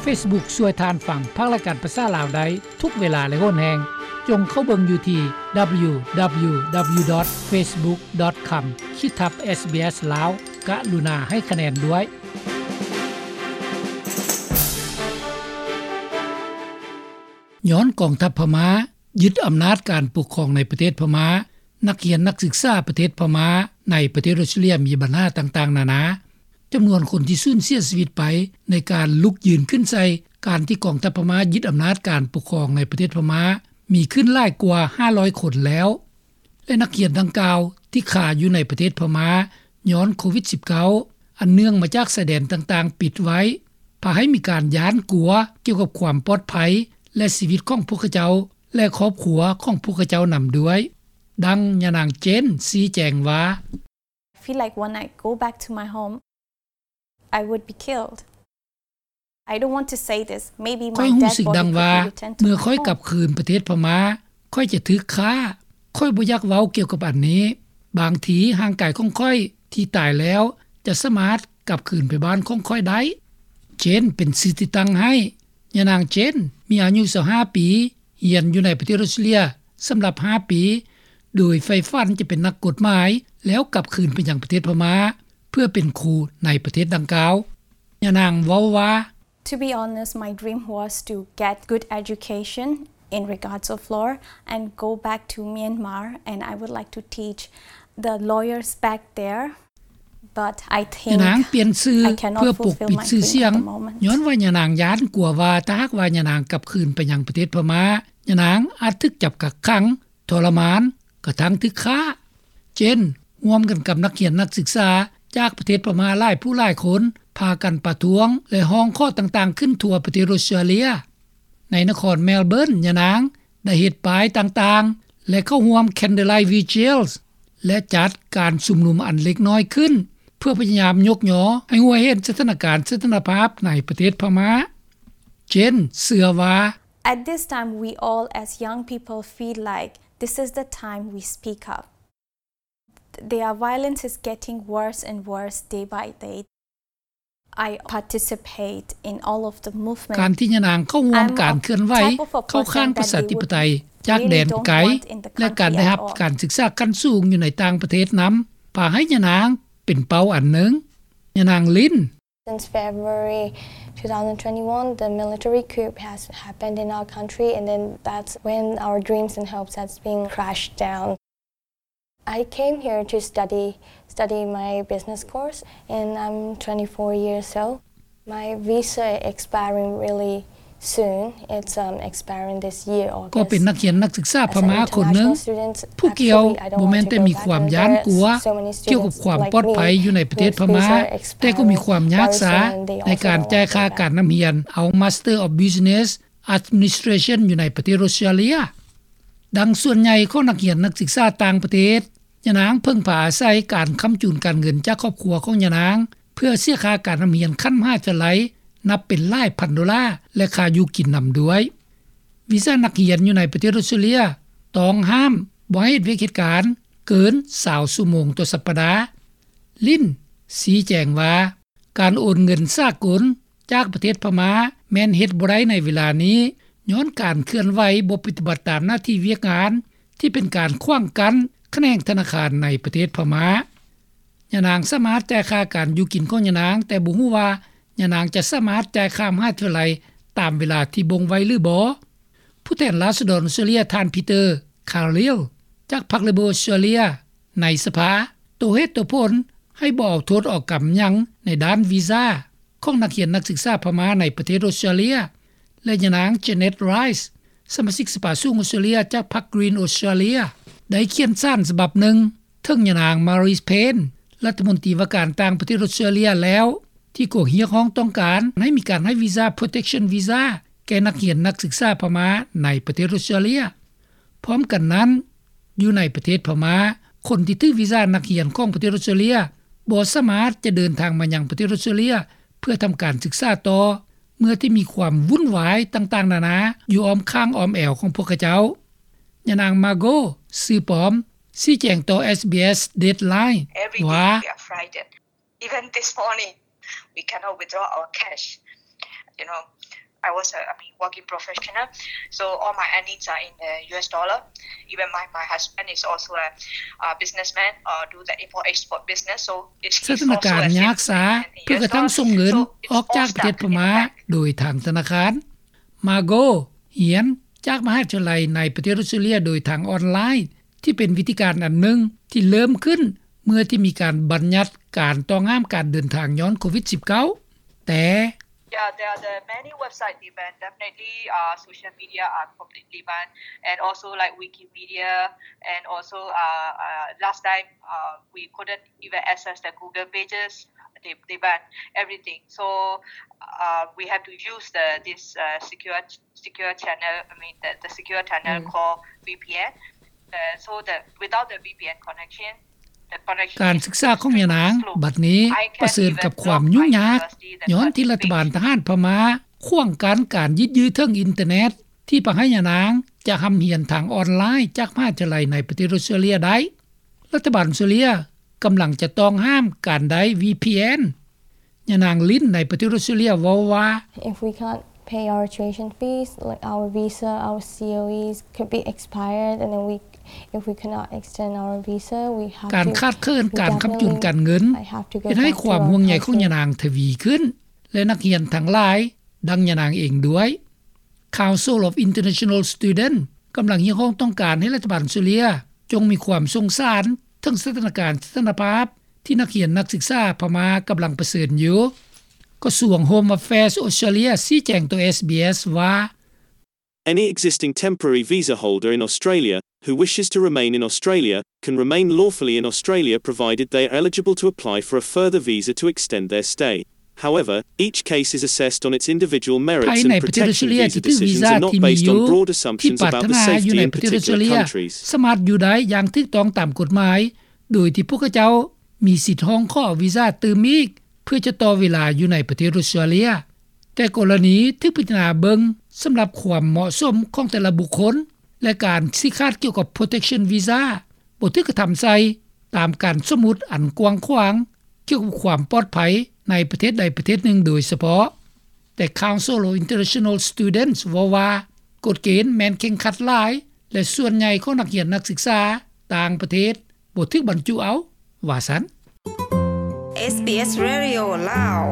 ເຟສບຸກຊ່ວຍທ່ານຟັງພາກລາຍການພາສາລາວໄດ້ທຸກເວລາ ແລະ ໂຫນແຮງ. ຈົ່ງເຂົ້າເບິ່ງຢູ່ທີ່ ດັບເບິນຢູ ດັບເບິນຢູ ດັບເບິນຢູ ດອດ ເຟສບຸກ ດອດ ຄອມ ຂີດທັບ ເອສບີເອສ ລາວ. ກະລຸນາໃຫ້ຄະແນນດ້ວຍ. ຍ້ອນກອງທັບພະມ້າຍຶດອຳນາດການປົກຄອງໃນປະເທດພະມ້າ, ນັກຮຽນນັກສຶກສາປະເທດພະມ້າໃນປະເທດອົດສະຕຣາເລຍມີບັນຫາຕ່າງໆນານາ. ຈຳນວນຄົນທີ່ສູນເສຍຊີວິດໄປໃນການລຸກຢືນຂຶ້ນໃສ່ການທີ່ກອງທັບພະມ້າຍຶດອຳນາດການປົກຄອງໃນປະເທດພະມ້າ ມີຂຶ້ນຫຼາຍກວ່າຫ້າຮ້ອຍຄົນແລ້ວ ແລະ ນັກຮຽນດັ່ງກ່າວທີ່ຄາຢູ່ໃນປະເທດພະມ້າ ຍ້ອນໂຄວິດສິບເກົ້າ ອັນເນື່ອງມາຈາກຊາຍແດນຕ່າງໆປິດໄວ້ ພາໃຫ້ມີການຢ້ານກົວກ່ຽວກັບຄວາມປອດໄພ ແລະ ຊີວິດຂອງພວກເຂົາເຈົ້າ ແລະ ຄອບຄົວຂອງພວກເຂົາເຈົ້ານຳດ້ວຍ. ດັ່ງຍານາງເຈນຊີ້ແຈງວ່າ, I feel like when I go back to my home, I would be killed. I don't want to say this. Maybe my dead body could be returned to my home. ຂ້ອຍຮູ້ສຶກດັ່ງວ່າ ເມື່ອຂ້ອຍກັບຄືນປະເທດພະມ້າ ຂ້ອຍຈະຖືກຂ້າ. ຂ້ອຍບໍ່ຢາກເວົ້າກ່ຽວກັບອັນນີ້. ບາງທີຮ່າງກາຍຂອງຂ້ອຍທີ່ຕາຍແລ້ວ ຈະສາມາດກັບຄືນໄປບ້ານຂອງຂ້ອຍໄດ້. ເຈນເປັນຊື່ທີ່ຕັ້ງໃຫ້. ຍານາງເຈນມີອາຍຸຊາວຫ້າປີ, ຮຽນຢູ່ໃນປະເທດອົດສະຕຣາເລຍສຳລັບຫ້າປີ ໂດຍໃຝ່ຝັນຈະເປັນນັກກົດໝາຍ ແລ້ວກັບຄືນໄປຍັງປະເທດພະມ້າ ເພື່ອເປັນຄູໃນປະເທດດັ່ງກ່າວ. ຍານາງເວົ້າວ່າ, To be honest, my dream was to get good education in regards of law and go back to Myanmar, and I would like to teach the lawyers back there. But I think I cannot fulfill my dream at the moment. ຍານາງປ່ຽນຊື່ເພື່ອປົກປິດຊື່ສຽງ ຍ້ອນວ່າຍານາງຢ້ານກົວວ່າ ຖ້າຫາກວ່າຍານາງກັບຄືນໄປຍັງປະເທດພະມ້າ ຍານາງອາດຖືກຈັບກັກຂັງ, ທໍລະມານ, ກະທັ້ງຖືກຂ້າ. ເຈນ ຮ່ວມກັນກັບນັກຮຽນນັກສຶກສາຈາກປະເທດພະມ້າຫຼາຍຜູ້ຫຼາຍຄົນ ພາກັນປະທ້ວງ ແລະ ຮ້ອງຂໍຕ່າງໆຂຶ້ນທົ່ວປະເທດອົດສະຕຣາເລຍ. ໃນນະຄອນແມລເບີນ, ຍານາງໄດ້ເຮັດປ້າຍຕ່າງໆ ແລະ ເຂົ້າຮ່ວມ Candlelight Vigils ແລະ ຈັດການຊຸມນຸມອັນເລັກນ້ອຍຂຶ້ນ ເພື່ອພະຍາຍາມຍົກຍໍໃຫ້ຮູ້ໃຫ້ເຫັນສະຖານະການສັນຕິພາບໃນປະເທດພະມ້າ. ເຈນເຊື່ອວ່າ, At this time, we all as young people feel like this is the time we speak up. Their violence is getting worse and worse day by day. I participate in all of the movement. ການທີ່ຍານາງເຂົ້າຮ່ວມການເຄື່ອນໄຫວເຂົ້າຂ້າງປະຊາທິປະໄຕຈາກແດນໄກ ແລະ ການໄດ້ຮັບການສຶກສາຂັ້ນສູງຢູ່ໃນຕ່າງປະເທດນຳ ພາໃຫ້ຍານາງເປັນເປົ້າອັນໜຶ່ງ. ຍານາງລິນ Since February two thousand twenty-one, the military coup has happened in our country, and then that's when our dreams and hopes has been crashed down. I came here to study, study my business course, and I'm twenty-four years old. My visa expiring really soon. It's, um, expiring this year, August. ກໍເປັນນັກຮຽນນັກສຶກສາພະມ້າຄົນໜຶ່ງ ຜູ້ກ່ຽວບໍ່ແມ່ນແຕ່ມີຄວາມຢ້ານກົວກ່ຽວກັບຄວາມປອດໄພຢູ່ໃນປະເທດພະມ້າ, ແຕ່ກໍມີຄວາມຍາກຊ້າໃນການຈ່າຍຄ່າການນຳຮຽນເອົາ Master of Business Administration ຢູ່ໃນປະເທດອົດສະຕຣາເລຍ. ດັ່ງສ່ວນໃຫຍ່ຂອງນັກຮຽນນັກສຶກສາຕ່າງປະເທດ, ຍານາງເພິ່ງພາອາໄສການຄ້ຳຈູນການເງິນຈາກຄອບຄົວຂອງຍານາງ ເພື່ອເສຍຄ່າການນຳຮຽນຂັ້ນມະຫາວິທະຍາໄລ ນັບເປັນຫຼາຍພັນໂດລາ ແລະ ຄ່າຢູ່ກິນນຳດ້ວຍ. ວີຊານັກຮຽນຢູ່ໃນປະເທດອົດສະຕຣາເລຍ ຕ້ອງຫ້າມບໍ່ໃຫ້ເຮັດວຽກເຮັດການເກີນຊາວຊົ່ວໂມງຕໍ່ສັບປະດາ. ລິນຊີ້ແຈງວ່າ, ການໂອນເງິນສາກົນຈາກປະເທດພະມ້າແມ່ນເຮັດບໍ່ໄດ້ໃນເວລານີ້ ຍ້ອນການເຄື່ອນໄຫວບໍ່ປະຕິບັດຕາມໜ້າທີ່ວຽກງານ ທີ່ເປັນການຂວາງກັ້ນຂະແໜງທະນາຄານໃນປະເທດພະມ້າ. ຍານາງສາມາດຈ່າຍຄ່າການຢູ່ກິນຂອງຍານາງ, ແຕ່ບໍ່ຮູ້ວ່າຍານາງຈະສາມາດຈ່າຍຄ່າມະຫາວິທະຍາໄລຕາມເວລາທີ່ບົ່ງໄວ້ຫຼືບໍ່. ຜູ້ແທນລາຊະດອນອົດສະຕຣາເລຍ ທ່ານ Peter Khalil ຈາກພັກ Labor ອົດສະຕຣາເລຍ ໃນສະພາ ໂຕ້ເຫດໂຕ້ຜົນໃຫ້ບໍ່ເອົາໂທດເອົາກຳຫຍັງໃນດ້ານວີຊາຂອງນັກຮຽນນັກສຶກສາພະມ້າໃນປະເທດອົດສະຕຣາເລຍ ແລະ ຍານາງ Janet Rice ສະມາຊິກສະພາສູງອົດສະຕຣາເລຍຈາກພັກ Green Australia ໄດ້ຂຽນສານສະບັບໜຶ່ງເຖິງຍານາງ Marise Payne ລັດຖະມົນຕີວ່າການຕ່າງປະເທດອົດສະຕຣາເລຍແລ້ວ ທີ່ກໍຮຽກຮ້ອງຕ້ອງການໃຫ້ມີການໃຫ້ວີຊາ Protection Visa ແກ່ນັກຮຽນນັກສຶກສາພະມ້າໃນປະເທດອົດສະຕຣາເລຍ. ພ້ອມກັນນັ້ນ, ຢູ່ໃນປະເທດພະມ້າ, ຄົນທີ່ຖືກວີຊານັກຮຽນຂອງປະເທດອົດສະຕຣາເລຍບໍ່ສາມາດຈະເດີນທາງມາຍັງປະເທດອົດສະຕຣາເລຍເພື່ອທຳການສຶກສາຕໍ່ ເມື່ອທີ່ມີຄວາມວຸ້ນວາຍຕ່າງໆນານາຢູ່ອ້ອມຂ້າງອ້ອມແອວຂອງພວກເຂົາເຈົ້າ. ຍານາງ Margot ຊື່ປອມ ຊີ້ແຈງຕໍ່ SBS Deadline ວ່າ, Even this morning, we cannot withdraw our cash. You know, I was a, I mean, working professional, so all my earnings are in the U S dollar. Even my, my husband is also a, a businessman, uh, do the import export business. So it's, ສະຖານະການຍາກຊ້າເພື່ອກະທັ້ງສົ່ງເງິນອອກຈາກປະເທດພະມ້າໂດຍທາງທະນາຄານ. ມາໂກຮຽນຈາກມະຫາວິທະຍາໄລໃນປະເທດອອສເຕຣເລັຽໂດຍທາງອອນລາຍ ທີ່ເປັນວິທີການອັນໜຶ່ງທີ່ເລີ່ມຂຶ້ນເມື່ອທີ່ມີການບັນຍັດການຕ້ອງຫ້າມການເດີນທາງຍ້ອນໂຄວິດ-19 ແຕ່ Yeah, there are the many websites they ban. Definitely, uh, social media are completely banned, and also like Wikimedia, and also uh, uh, last time uh, we couldn't even access the Google pages. They they ban everything. So uh, we have to use the this uh, secure secure channel. I mean the the secure channel called V P N. Uh, so the without the V P N connection, ການສຶກສາຂອງຍານາງບັດນີ້ປະເຊີນກັບຄວາມຫຍຸ້ງຍາກ ຍ້ອນທີ່ລັດຖະບານທະຫານພະມ້າຂວາງກັ້ນການຍືດເຖິງອິນເຕີເນັດ ທີ່ພາໃຫ້ຍານາງຈະຮ່ຳຮຽນທາງອອນລາຍຈາກມະຫາວິທະຍາໄລໃນປະເທດອອສເຕຣເລັຽໄດ້. ລັດຖະບານອອສເຕຣເລັຽກຳລັງຈະຕ້ອງຫ້າມການໄດ້ V P N. ຍານາງລິນໃນປະເທດອອສເຕຣເລັຽເວົ້າວ່າ If we can't pay our tuition fees, like our visa, our C O Es could be expired, and then we, if we cannot extend our visa, we have ການຂາດເຂີນການຄ້ຳຈຸນການເງິນເຮັດໃຫ້ຄວາມຫ່ວງໃຍຂອງຍານາງທະວີຂຶ້ນ ແລະນັກຮຽນທັງຫຼາຍ ດັ່ງຍານາງເອງດ້ວຍ. Council of International Students ກຳລັງຮຽກຮ້ອງຕ້ອງການໃຫ້ລັດຖະບານອອສເຕຣເລັຽຈົ່ງມີຄວາມສົງສານເຖິງສະຖານະການສະຖານະພາບທີ່ນັກຮຽນນັກສຶກສາພະມ້າກຳລັງປະເຊີນຢູ່. ກະຊວງ Home Affairs ອອສເຕຣເລັຽຊີ້ແຈງຕໍ່ SBS ວ່າ Any existing temporary visa holder in Australia who wishes to remain in Australia can remain lawfully in Australia provided they are eligible to apply for a further visa to extend their stay. However, each case is assessed on its individual merits and protection. Visa decisions are not based on broad assumptions about the safety in particular countries. ສາມາດຢູ່ໄດ້ຢ່າງຖືກຕ້ອງຕາມກົດໝາຍ ໂດຍທີ່ພວກເຂົາເຈົ້າມີສິດຮ້ອງຂໍວີຊາຕື່ມອີກ ເພື່ອຈະຕໍ່ເວລາຢູ່ໃນປະເທດອອສເຕຣເລັຽ. ແຕ່ກໍລະນີຖືກພິຈາລະນາເບິ່ງສຳລັບຄວາມເໝາະສົມຂອງແຕ່ລະບຸກຄົນ ແລະ ການຊີ້ຂາດກ່ຽວກັບ protection visa ບໍ່ຖືກກະທຳໃສ່ຕາມການສົມມຸດອັນກວ້າງຂວາງກ່ຽວກັບຄວາມປອດໄພໃນປະເທດໃດປະເທດໜຶ່ງໂດຍສະເພາະ. ແຕ່ Council of International Students ເວົ້າວ່າ ກົດເກນແມ່ນເຄັ່ງຄັດຫຼາຍ ແລະ ສ່ວນໃຫຍ່ຂອງນັກຮຽນນັກສຶກສາຕ່າງປະເທດບໍ່ຖືກບັນຈຸເອົາ ວ່າຊັ້ນ. SBS Radio ລາວ